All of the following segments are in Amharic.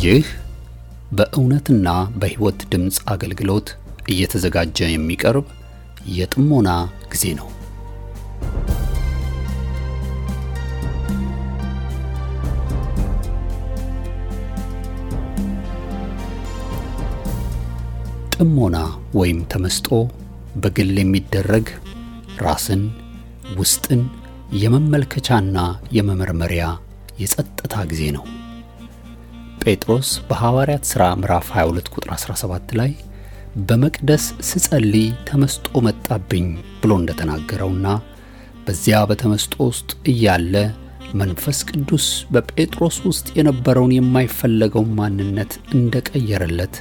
ይህ በእውነትና በሕይወት ድምጽ አገልግሎት እየተዘጋጀ የሚቀርብ የጥሞና ጊዜ ነው። ጥሞና ወይም ተመስጦ በግል የሚደረግ ራስን ውስጥን የመመልከቻና የመመርመሪያ የጸጥታ ጊዜ ነው። ጴጥሮስ በሐዋርያት ሥራ ምዕራፍ 22 ቁጥር 17 ላይ በመቅደስ ስጸልይ ተመስጦ መጣብኝ ብሎ እንደተናገረውና በዚያ በተመስጦ ውስጥ እያለ መንፈስ ቅዱስ በጴጥሮስ ውስጥ የነበረውን የማይፈለገው ማንነት እንደቀየረለት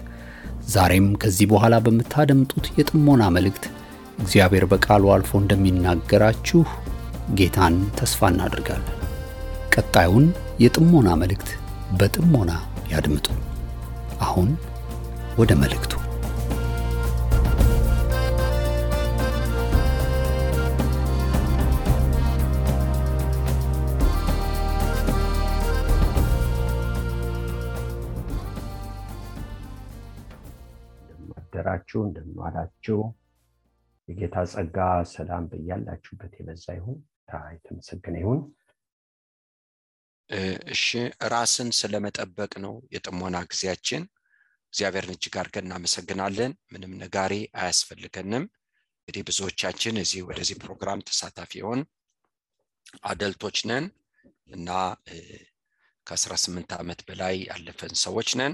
ዛሬም ከዚህ በኋላ በመታደምጡት የጥሞና መልእክት እግዚአብሔር በቃሉ አልፎ እንደሚናገራችሁ ጌታን ተስፋ እናደርጋለን። ቀጣዩን የጥሞና መልእክት በጥሞና ያድምጡ። አሁን ወደ መልእክቱ። እንደምናደራችሁ እንደምናላችሁ የጌታ ጸጋ ሰላም በእያላችሁበት የበዛ ይሁን። የተመሰገነ ይሁን። እሺ ራስን ስለመጠበቅ ነው የጥሞና ጊዜያችን። እግዚአብሔርን እጅግ አድርገን እናመሰግናለን። ምንም ነጋሪ አያስፈልገንም። እንግዲህ ብዙዎቻችን እዚህ ወደዚህ ፕሮግራም ተሳታፊ ሆን አደልቶች ነን እና ከ18 ዓመት በላይ ያለፈን ሰዎች ነን።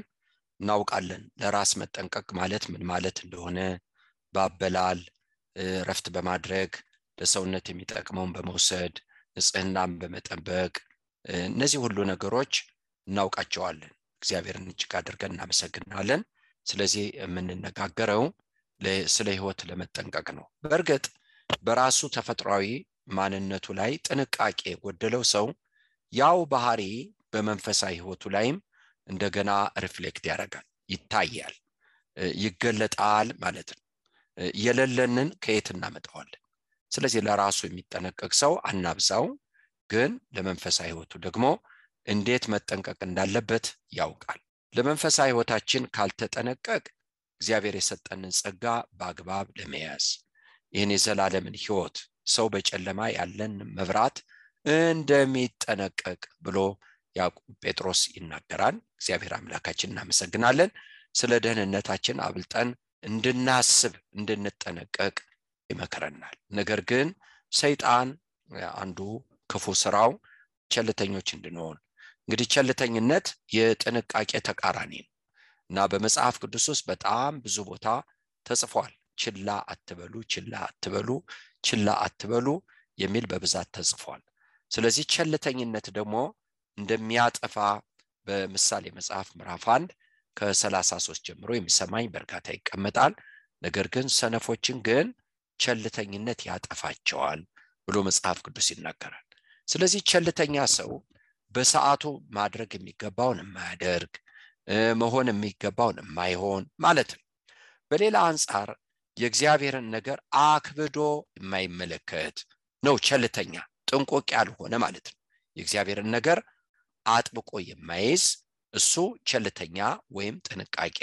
እናውቃለን ለራስ መጠንቀቅ ማለት ምን ማለት እንደሆነ ባበላል ረፍት በማድረግ ለሰውነት የሚጠቅመውን በመውሰድ ንጽህናን በመጠበቅ እነዚህ ሁሉ ነገሮች እናውቃቸዋለን። እግዚአብሔርን እጅግ አድርገን እናመሰግናለን። ስለዚህ የምንነጋገረው ስለ ሕይወት ለመጠንቀቅ ነው። በእርግጥ በራሱ ተፈጥሯዊ ማንነቱ ላይ ጥንቃቄ የጎደለው ሰው ያው ባህሪ በመንፈሳዊ ሕይወቱ ላይም እንደገና ሪፍሌክት ያደርጋል፣ ይታያል፣ ይገለጣል ማለት ነው። የሌለንን ከየት እናመጣዋለን? ስለዚህ ለራሱ የሚጠነቀቅ ሰው አናብዛው፣ ግን ለመንፈሳዊ ሕይወቱ ደግሞ እንዴት መጠንቀቅ እንዳለበት ያውቃል። ለመንፈሳዊ ሕይወታችን ካልተጠነቀቅ እግዚአብሔር የሰጠንን ጸጋ በአግባብ ለመያዝ ይህን የዘላለምን ሕይወት ሰው በጨለማ ያለን መብራት እንደሚጠነቀቅ ብሎ ያዕቆብ ጴጥሮስ ይናገራል። እግዚአብሔር አምላካችን እናመሰግናለን። ስለ ደህንነታችን አብልጠን እንድናስብ እንድንጠነቀቅ ይመክረናል። ነገር ግን ሰይጣን አንዱ ክፉ ስራው ቸልተኞች እንድንሆን። እንግዲህ ቸልተኝነት የጥንቃቄ ተቃራኒ ነው እና በመጽሐፍ ቅዱስ ውስጥ በጣም ብዙ ቦታ ተጽፏል። ችላ አትበሉ፣ ችላ አትበሉ፣ ችላ አትበሉ የሚል በብዛት ተጽፏል። ስለዚህ ቸልተኝነት ደግሞ እንደሚያጠፋ በምሳሌ መጽሐፍ ምዕራፍ 1 ከ33 ጀምሮ የሚሰማኝ በርካታ ይቀመጣል። ነገር ግን ሰነፎችን ግን ቸልተኝነት ያጠፋቸዋል ብሎ መጽሐፍ ቅዱስ ይናገራል። ስለዚህ ቸልተኛ ሰው በሰዓቱ ማድረግ የሚገባውን የማያደርግ መሆን የሚገባውን የማይሆን ማለት ነው። በሌላ አንጻር የእግዚአብሔርን ነገር አክብዶ የማይመለከት ነው ቸልተኛ፣ ጥንቆቅ ያልሆነ ማለት ነው። የእግዚአብሔርን ነገር አጥብቆ የማይዝ እሱ ቸልተኛ ወይም ጥንቃቄ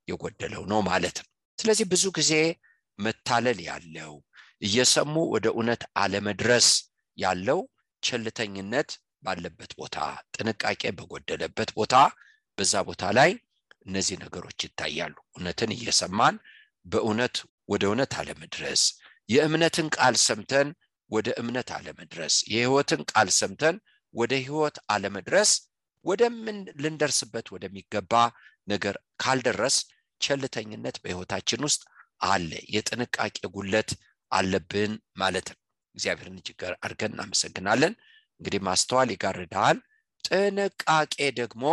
የጎደለው ነው ማለት ነው። ስለዚህ ብዙ ጊዜ መታለል ያለው እየሰሙ ወደ እውነት አለመድረስ ያለው ቸልተኝነት ባለበት ቦታ፣ ጥንቃቄ በጎደለበት ቦታ፣ በዛ ቦታ ላይ እነዚህ ነገሮች ይታያሉ። እውነትን እየሰማን በእውነት ወደ እውነት አለመድረስ፣ የእምነትን ቃል ሰምተን ወደ እምነት አለመድረስ፣ የሕይወትን ቃል ሰምተን ወደ ሕይወት አለመድረስ፣ ወደምን ልንደርስበት ወደሚገባ ነገር ካልደረስ ቸልተኝነት በሕይወታችን ውስጥ አለ። የጥንቃቄ ጉድለት አለብን ማለት ነው። እግዚአብሔርን እጅግ አድርገን እናመሰግናለን። እንግዲህ ማስተዋል ይጋርዳል፣ ጥንቃቄ ደግሞ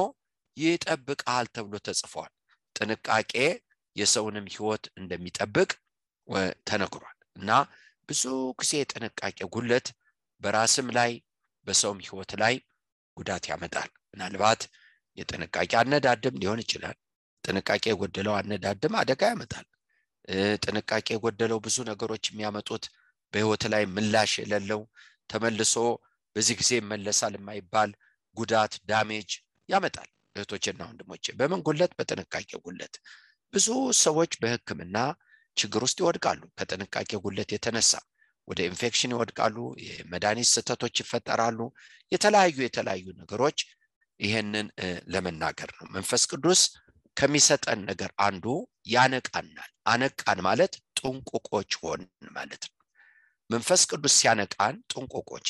ይጠብቃል ተብሎ ተጽፏል። ጥንቃቄ የሰውንም ሕይወት እንደሚጠብቅ ተነግሯል እና ብዙ ጊዜ ጥንቃቄ ጉድለት በራስም ላይ በሰውም ሕይወት ላይ ጉዳት ያመጣል። ምናልባት የጥንቃቄ አነዳድም ሊሆን ይችላል። ጥንቃቄ የጎደለው አነዳድም አደጋ ያመጣል። ጥንቃቄ የጎደለው ብዙ ነገሮች የሚያመጡት በሕይወት ላይ ምላሽ የሌለው ተመልሶ በዚህ ጊዜ መለሳል የማይባል ጉዳት ዳሜጅ ያመጣል። እህቶችና ወንድሞቼ በምን ጉለት? በጥንቃቄ ጉለት። ብዙ ሰዎች በሕክምና ችግር ውስጥ ይወድቃሉ። ከጥንቃቄ ጉለት የተነሳ ወደ ኢንፌክሽን ይወድቃሉ። የመድኃኒት ስህተቶች ይፈጠራሉ። የተለያዩ ነገሮች ይሄንን ለመናገር ነው። መንፈስ ቅዱስ ከሚሰጠን ነገር አንዱ ያነቃናል። አነቃን ማለት ጥንቁቆች ሆን ማለት ነው። መንፈስ ቅዱስ ሲያነቃን ጥንቁቆች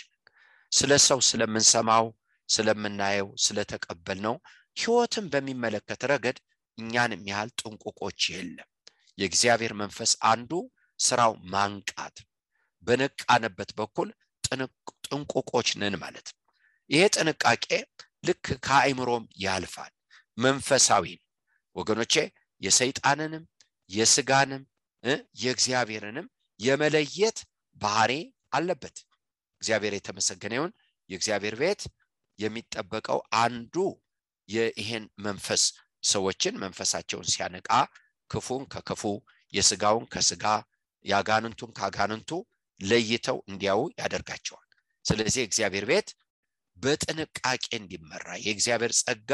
ስለ ሰው ስለምንሰማው ስለምናየው ስለተቀበልነው ሕይወትን በሚመለከት ረገድ እኛንም ያህል ጥንቁቆች የለም። የእግዚአብሔር መንፈስ አንዱ ስራው ማንቃት፣ በነቃንበት በኩል ጥንቁቆች ነን ማለት ነው። ይሄ ጥንቃቄ ልክ ከአእምሮም ያልፋል፣ መንፈሳዊ ነው ወገኖቼ። የሰይጣንንም የስጋንም የእግዚአብሔርንም የመለየት ባህሪ አለበት። እግዚአብሔር የተመሰገነ ይሁን። የእግዚአብሔር ቤት የሚጠበቀው አንዱ ይሄን መንፈስ ሰዎችን መንፈሳቸውን ሲያነቃ ክፉን ከክፉ የስጋውን ከስጋ ያጋንንቱን ካጋንንቱ ለይተው እንዲያው ያደርጋቸዋል። ስለዚህ እግዚአብሔር ቤት በጥንቃቄ እንዲመራ የእግዚአብሔር ጸጋ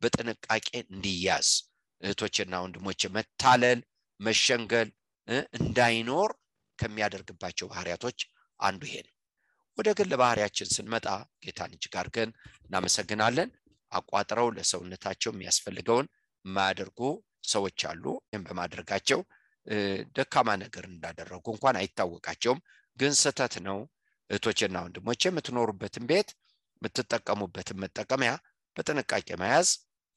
በጥንቃቄ እንዲያዝ እህቶችና ወንድሞቼ መታለል መሸንገል እንዳይኖር ከሚያደርግባቸው ባህሪያቶች አንዱ ይሄ ነው። ወደ ግል ባህሪያችን ስንመጣ ጌታን እጅግ አድርገን እናመሰግናለን። አቋጥረው ለሰውነታቸው የሚያስፈልገውን ማያደርጉ ሰዎች አሉ። ይህን በማድረጋቸው ደካማ ነገር እንዳደረጉ እንኳን አይታወቃቸውም፣ ግን ስህተት ነው። እህቶችና ወንድሞቼ የምትኖሩበትን ቤት የምትጠቀሙበትን መጠቀሚያ በጥንቃቄ መያዝ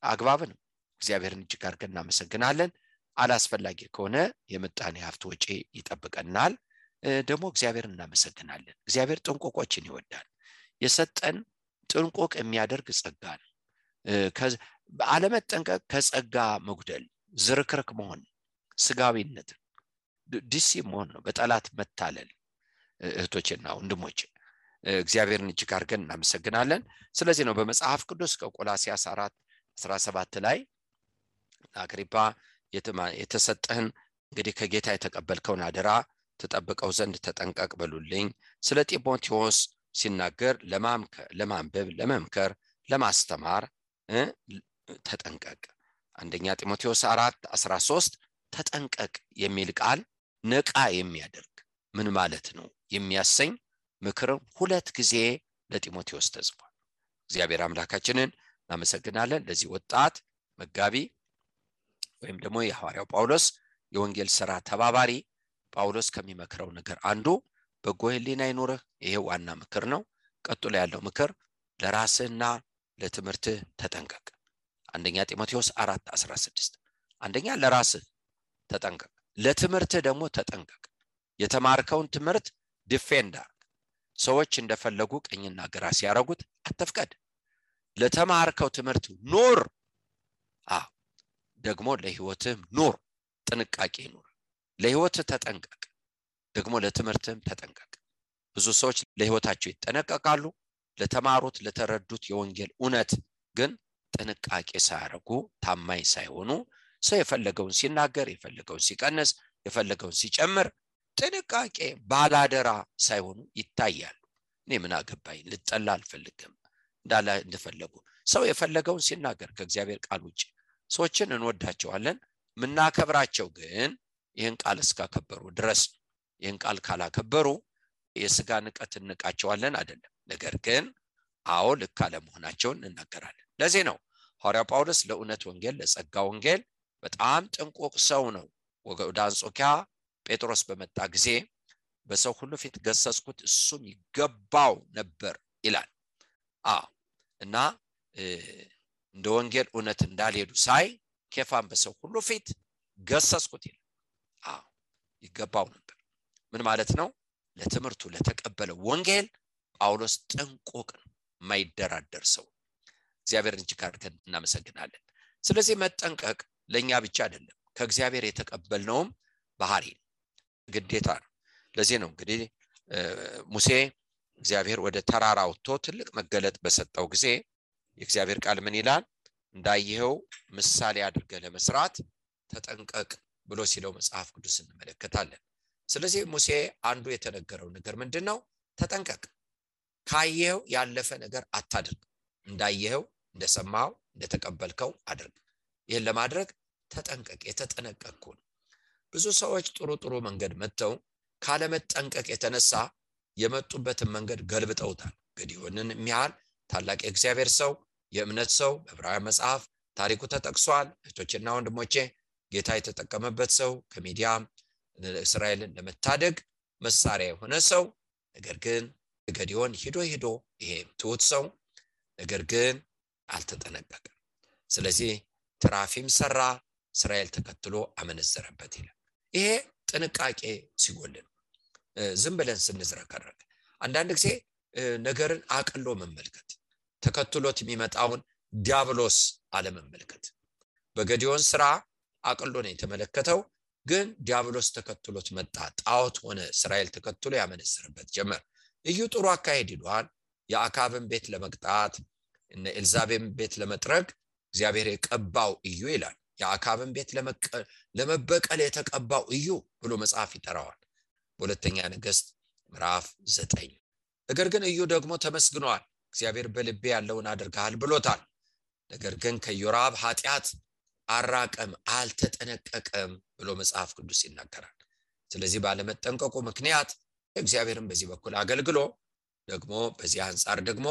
አግባብ ነው። እግዚአብሔርን እጅግ አድርገን እናመሰግናለን። አላስፈላጊ ከሆነ የምጣኔ ሀብት ወጪ ይጠብቀናል። ደግሞ እግዚአብሔርን እናመሰግናለን። እግዚአብሔር ጥንቁቆችን ይወዳል። የሰጠን ጥንቁቅ የሚያደርግ ጸጋ ነው። አለመጠንቀቅ ከጸጋ መጉደል፣ ዝርክርክ መሆን፣ ስጋዊነት፣ ዲሲፕሊን መሆን ነው፣ በጠላት መታለል። እህቶችና ወንድሞቼ እግዚአብሔርን እጅግ አድርገን እናመሰግናለን። ስለዚህ ነው በመጽሐፍ ቅዱስ ከቆላስይስ 4:17 ላይ አግሪጳ የተሰጠህን እንግዲህ ከጌታ የተቀበልከውን አደራ ተጠብቀው ዘንድ ተጠንቀቅ በሉልኝ። ስለ ጢሞቴዎስ ሲናገር ለማንበብ ለመምከር ለማስተማር ተጠንቀቅ። አንደኛ ጢሞቴዎስ 4:13 ተጠንቀቅ የሚል ቃል ነቃ የሚያደርግ ምን ማለት ነው የሚያሰኝ ምክር ሁለት ጊዜ ለጢሞቴዎስ ተጽፏል። እግዚአብሔር አምላካችንን እናመሰግናለን። ለዚህ ወጣት መጋቢ ወይም ደግሞ የሐዋርያው ጳውሎስ የወንጌል ሥራ ተባባሪ ጳውሎስ ከሚመክረው ነገር አንዱ በጎ ሕሊና ይኑርህ። ይሄ ዋና ምክር ነው። ቀጥሎ ያለው ምክር ለራስህና ለትምህርትህ ተጠንቀቅ። አንደኛ ጢሞቴዎስ 4:16 አንደኛ ለራስህ ተጠንቀቅ፣ ለትምህርትህ ደግሞ ተጠንቀቅ። የተማርከውን ትምህርት ዲፌንድ አድርግ። ሰዎች እንደፈለጉ ቀኝና ግራ ሲያረጉት አትፍቀድ። ለተማርከው ትምህርት ኑር። ደግሞ ለህይወትህ ኑር። ጥንቃቄ ኑር። ለህይወትህ ተጠንቀቅ፣ ደግሞ ለትምህርትህም ተጠንቀቅ። ብዙ ሰዎች ለህይወታቸው ይጠነቀቃሉ፣ ለተማሩት ለተረዱት የወንጌል እውነት ግን ጥንቃቄ ሳያረጉ ታማኝ ሳይሆኑ ሰው የፈለገውን ሲናገር የፈለገውን ሲቀንስ የፈለገውን ሲጨምር ጥንቃቄ ባላደራ ሳይሆኑ ይታያሉ። እኔ ምን አገባኝ ልጠላ አልፈልግም እንዳላ እንደፈለጉ ሰው የፈለገውን ሲናገር ከእግዚአብሔር ቃል ውጪ ሰዎችን እንወዳቸዋለን። ምናከብራቸው ግን ይህን ቃል እስካከበሩ ድረስ። ይህን ቃል ካላከበሩ የሥጋ ንቀት እንቃቸዋለን አይደለም። ነገር ግን አዎ ልክ አለመሆናቸውን እንናገራለን። ለዚህ ነው ሐዋርያው ጳውሎስ ለእውነት ወንጌል ለጸጋ ወንጌል በጣም ጥንቁቅ ሰው ነው። ወደ አንጾኪያ ጴጥሮስ በመጣ ጊዜ በሰው ሁሉ ፊት ገሰጽኩት፣ እሱም ይገባው ነበር ይላል። እና እንደ ወንጌል እውነት እንዳልሄዱ ሳይ ኬፋን በሰው ሁሉ ፊት ገሰጽኩት ይላል። ይገባው ነበር ምን ማለት ነው? ለትምህርቱ ለተቀበለው ወንጌል ጳውሎስ ጥንቁቅ ነው፣ የማይደራደር ሰው። እግዚአብሔርን እጅግ አድርገን እናመሰግናለን። ስለዚህ መጠንቀቅ ለኛ ብቻ አይደለም፣ ከእግዚአብሔር የተቀበልነውም ባህሪ ነው፣ ግዴታ ነው። ለዚህ ነው እንግዲህ ሙሴ እግዚአብሔር ወደ ተራራ ወጥቶ ትልቅ መገለጥ በሰጠው ጊዜ የእግዚአብሔር ቃል ምን ይላል? እንዳይሄው ምሳሌ አድርገህ ለመስራት ተጠንቀቅ ብሎ ሲለው መጽሐፍ ቅዱስ እንመለከታለን። ስለዚህ ሙሴ አንዱ የተነገረው ነገር ምንድነው? ተጠንቀቅ፣ ካየው ያለፈ ነገር አታድርግ፣ እንዳየው እንደሰማው እንደተቀበልከው አድርግ። ይህን ለማድረግ ተጠንቀቅ። የተጠነቀቅኩ ነው። ብዙ ሰዎች ጥሩ መንገድ መተው ካለመጠንቀቅ የተነሳ የመጡበትን መንገድ ገልብጠውታል። ገዲዮንን የሚያህል ታላቅ የእግዚአብሔር ሰው፣ የእምነት ሰው በዕብራውያን መጽሐፍ ታሪኩ ተጠቅሷል። እህቶችና ወንድሞቼ ጌታ የተጠቀመበት ሰው፣ ከሚዲያም እስራኤልን ለመታደግ መሳሪያ የሆነ ሰው፣ ነገር ግን ገዲዮን ሄዶ ይሄ ትሁት ሰው ነገር ግን አልተጠነቀቀም። ስለዚህ ትራፊም ሰራ፣ እስራኤል ተከትሎ አመነዘረበት ይላል። ይሄ ጥንቃቄ ሲጎልን ዝም ብለን ስንዝረከረክ አንዳንድ ጊዜ ነገርን አቅሎ መመልከት፣ ተከትሎት የሚመጣውን ዲያብሎስ አለመመልከት። በገዲዮን ስራ አቅሎ ነው የተመለከተው፣ ግን ዲያብሎስ ተከትሎት መጣ። ጣዖት ሆነ። እስራኤል ተከትሎ ያመነዝርበት ጀመር። እዩ ጥሩ አካሄድ ይሏል። የአካብን ቤት ለመቅጣት እነ ኤልዛቤም ቤት ለመጥረግ እግዚአብሔር የቀባው እዩ ይላል። የአካብን ቤት ለመበቀል የተቀባው እዩ ብሎ መጽሐፍ ይጠራዋል በሁለተኛ ነገሥት ምዕራፍ 9። ነገር ግን እዩ ደግሞ ተመስግኗል። እግዚአብሔር በልቤ ያለውን አድርገሃል ብሎታል። ነገር ግን ከዮራብ ኃጢአት አራቀም፣ አልተጠነቀቀም ብሎ መጽሐፍ ቅዱስ ይናገራል። ስለዚህ ባለመጠንቀቁ ምክንያት እግዚአብሔርን በዚህ በኩል አገልግሎ ደግሞ በዚህ አንፃር ደግሞ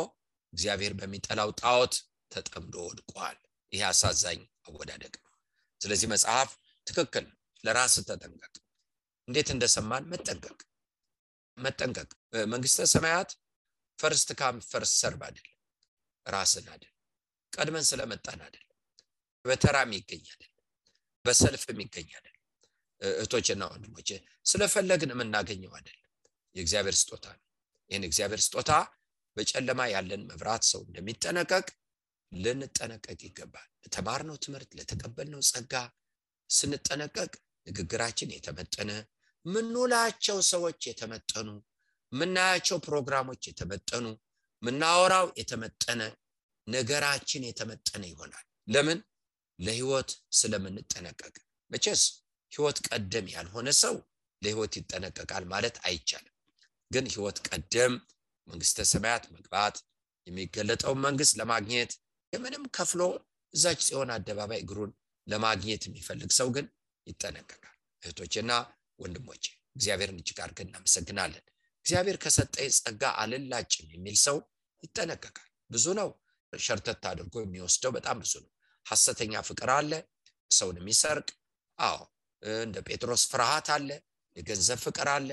እግዚአብሔር በሚጠላው ጣዖት ተጠምዶ ወድቋል። ይህ አሳዛኝ አወዳደቅ ነው። ስለዚህ መጽሐፍ ትክክል፣ ለራስ ተጠንቀቅ። እንዴት እንደሰማን መጠንቀቅ። መንግስተ ሰማያት ፈርስት ካም ፈርስት ሰርቭ አይደለም፣ ራስን አይደለም፣ ቀድመን ስለመጣን አይደለም፣ በተራም ይገኛል፣ በሰልፍም ይገኛል። እህቶችና ወንድሞቼ ስለፈለግን የምናገኘው አይደለም፣ የእግዚአብሔር ስጦታ ነው። ይህን እግዚአብሔር ስጦታ በጨለማ ያለን መብራት ሰው እንደሚጠነቀቅ ልንጠነቀቅ ይገባል። ለተማርነው ትምህርት፣ ለተቀበልነው ጸጋ ስንጠነቀቅ ንግግራችን የተመጠነ፣ ምንውላቸው ሰዎች የተመጠኑ፣ ምናያቸው ፕሮግራሞች የተመጠኑ፣ ምናወራው የተመጠነ፣ ነገራችን የተመጠነ ይሆናል። ለምን? ለህይወት ስለምንጠነቀቅ። መቼስ ህይወት ቀደም ያልሆነ ሰው ለህይወት ይጠነቀቃል ማለት አይቻልም። ግን ህይወት ቀደም መንግስተ ሰማያት መግባት የሚገለጠው መንግስት ለማግኘት የምንም ከፍሎ እዛች ጽዮን አደባባይ እግሩን ለማግኘት የሚፈልግ ሰው ግን ይጠነቀቃል። እህቶችና ወንድሞቼ እግዚአብሔርን እጅግ አድርገን እናመሰግናለን። እግዚአብሔር ከሰጠኝ ጸጋ አልላጭም የሚል ሰው ይጠነቀቃል። ብዙ ነው ሸርተት አድርጎ የሚወስደው፣ በጣም ብዙ ነው። ሐሰተኛ ፍቅር አለ፣ ሰውን የሚሰርቅ። እንደ ጴጥሮስ ፍርሃት አለ፣ የገንዘብ ፍቅር አለ፣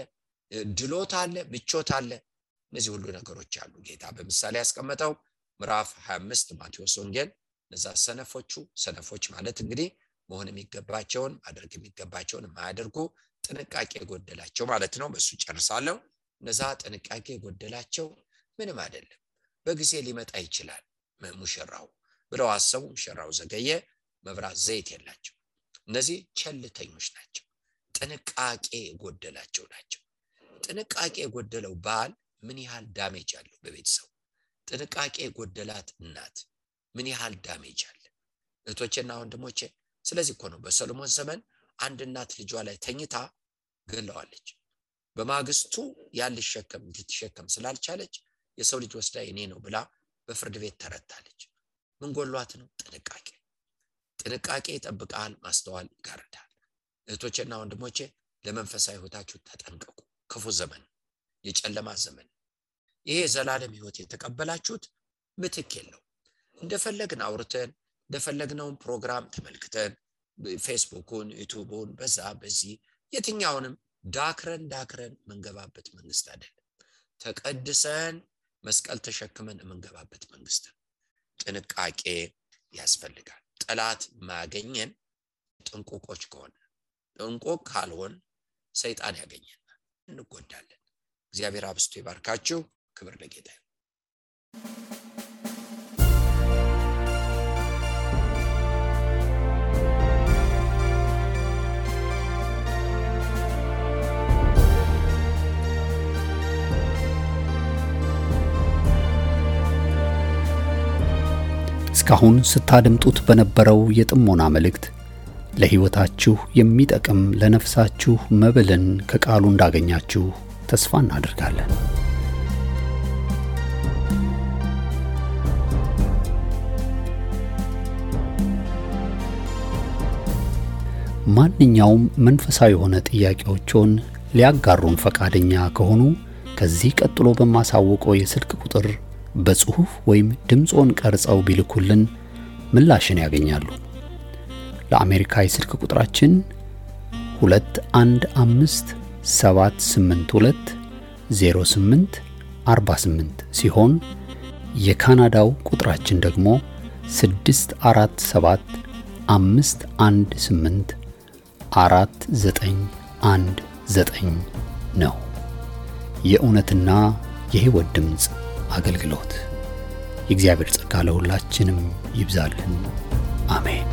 ድሎት አለ፣ ምቾት አለ። እነዚህ ሁሉ ነገሮች አሉ። ጌታ በምሳሌ ያስቀመጠው ምዕራፍ 25 ማቴዎስ ወንጌል እነዛ ሰነፎች ማለት እንግዲህ መሆን የሚገባቸውን ማድረግ የሚገባቸውን የማያደርጉ ጥንቃቄ የጎደላቸው ማለት ነው። በሱ ጨርሳለሁ። እነዛ ጥንቃቄ የጎደላቸው ምንም አይደለም፣ በጊዜ ሊመጣ ይችላል ሙሽራው ብለው አሰቡ። ሙሽራው ዘገየ፣ መብራት ዘይት የላቸው። እነዚህ ቸልተኞች ናቸው፣ ጥንቃቄ የጎደላቸው ናቸው። ጥንቃቄ የጎደለው ባል ምን ያህል ዳሜጅ አለው በቤተሰቡ? ጥንቃቄ የጎደላት እናት ምን ያህል ዳሜጅ አለ? እህቶቼና ወንድሞቼ ስለዚህ እኮ ነው በሰሎሞን ዘመን አንድ እናት ልጇ ላይ ተኝታ ገለዋለች። በማግስቱ ያልሸከም እንድትሸከም ስላልቻለች የሰው ልጅ ወስዳ የኔ ነው ብላ በፍርድ ቤት ተረታለች። ምን ጎሏት ነው? ጥንቃቄ ይጠብቃል፣ ማስተዋል ይጋርዳል። እህቶቼና ወንድሞቼ ለመንፈሳዊ ህይወታችሁ ተጠንቀቁ። ክፉ ዘመን፣ የጨለማ ዘመን። ይሄ ዘላለም ህይወት የተቀበላችሁት ምትክ የለው። እንደፈለግን አውርተን እንደፈለግነው ፕሮግራም ተመልክተን ፌስቡክን፣ ዩቲዩብን በዚህ የትኛውንም ዳክረን መንገባበት መንግስት አይደለም። ተቀድሰን መስቀል ተሸክመን መንገባበት መንግስት። ጥንቃቄ ያስፈልጋል። ጠላት ማገኘን ጥንቁቆች ከሆነ፣ ጥንቁቅ ካልሆን ሰይጣን ያገኘናል፣ እንጎዳለን። እግዚአብሔር አብስቶ ይባርካችሁ። ክብር ለጌታ ይሁን። እስካሁን ስታደምጡት በነበረው የጥሞና መልእክት ለሕይወታችሁ የሚጠቅም ለነፍሳችሁ መብልን ከቃሉ እንዳገኛችሁ ተስፋ እናደርጋለን። ማንኛውም መንፈሳዊ የሆነ ጥያቄዎችን ሊያጋሩን ፈቃደኛ ከሆኑ ከዚህ ቀጥሎ በማሳወቀው የስልክ ቁጥር በጽሁፍ ወይም ድምጾን ቀርጸው ቢልኩልን ምላሽን ያገኛሉ። ለአሜሪካ የስልክ ቁጥራችን 2157820848 ሲሆን የካናዳው ቁጥራችን ደግሞ 647-518-4919 ነው። የእውነትና የሕይወት ድምጽ አገልግሎት። የእግዚአብሔር ጸጋ ለሁላችንም ይብዛልን። አሜን።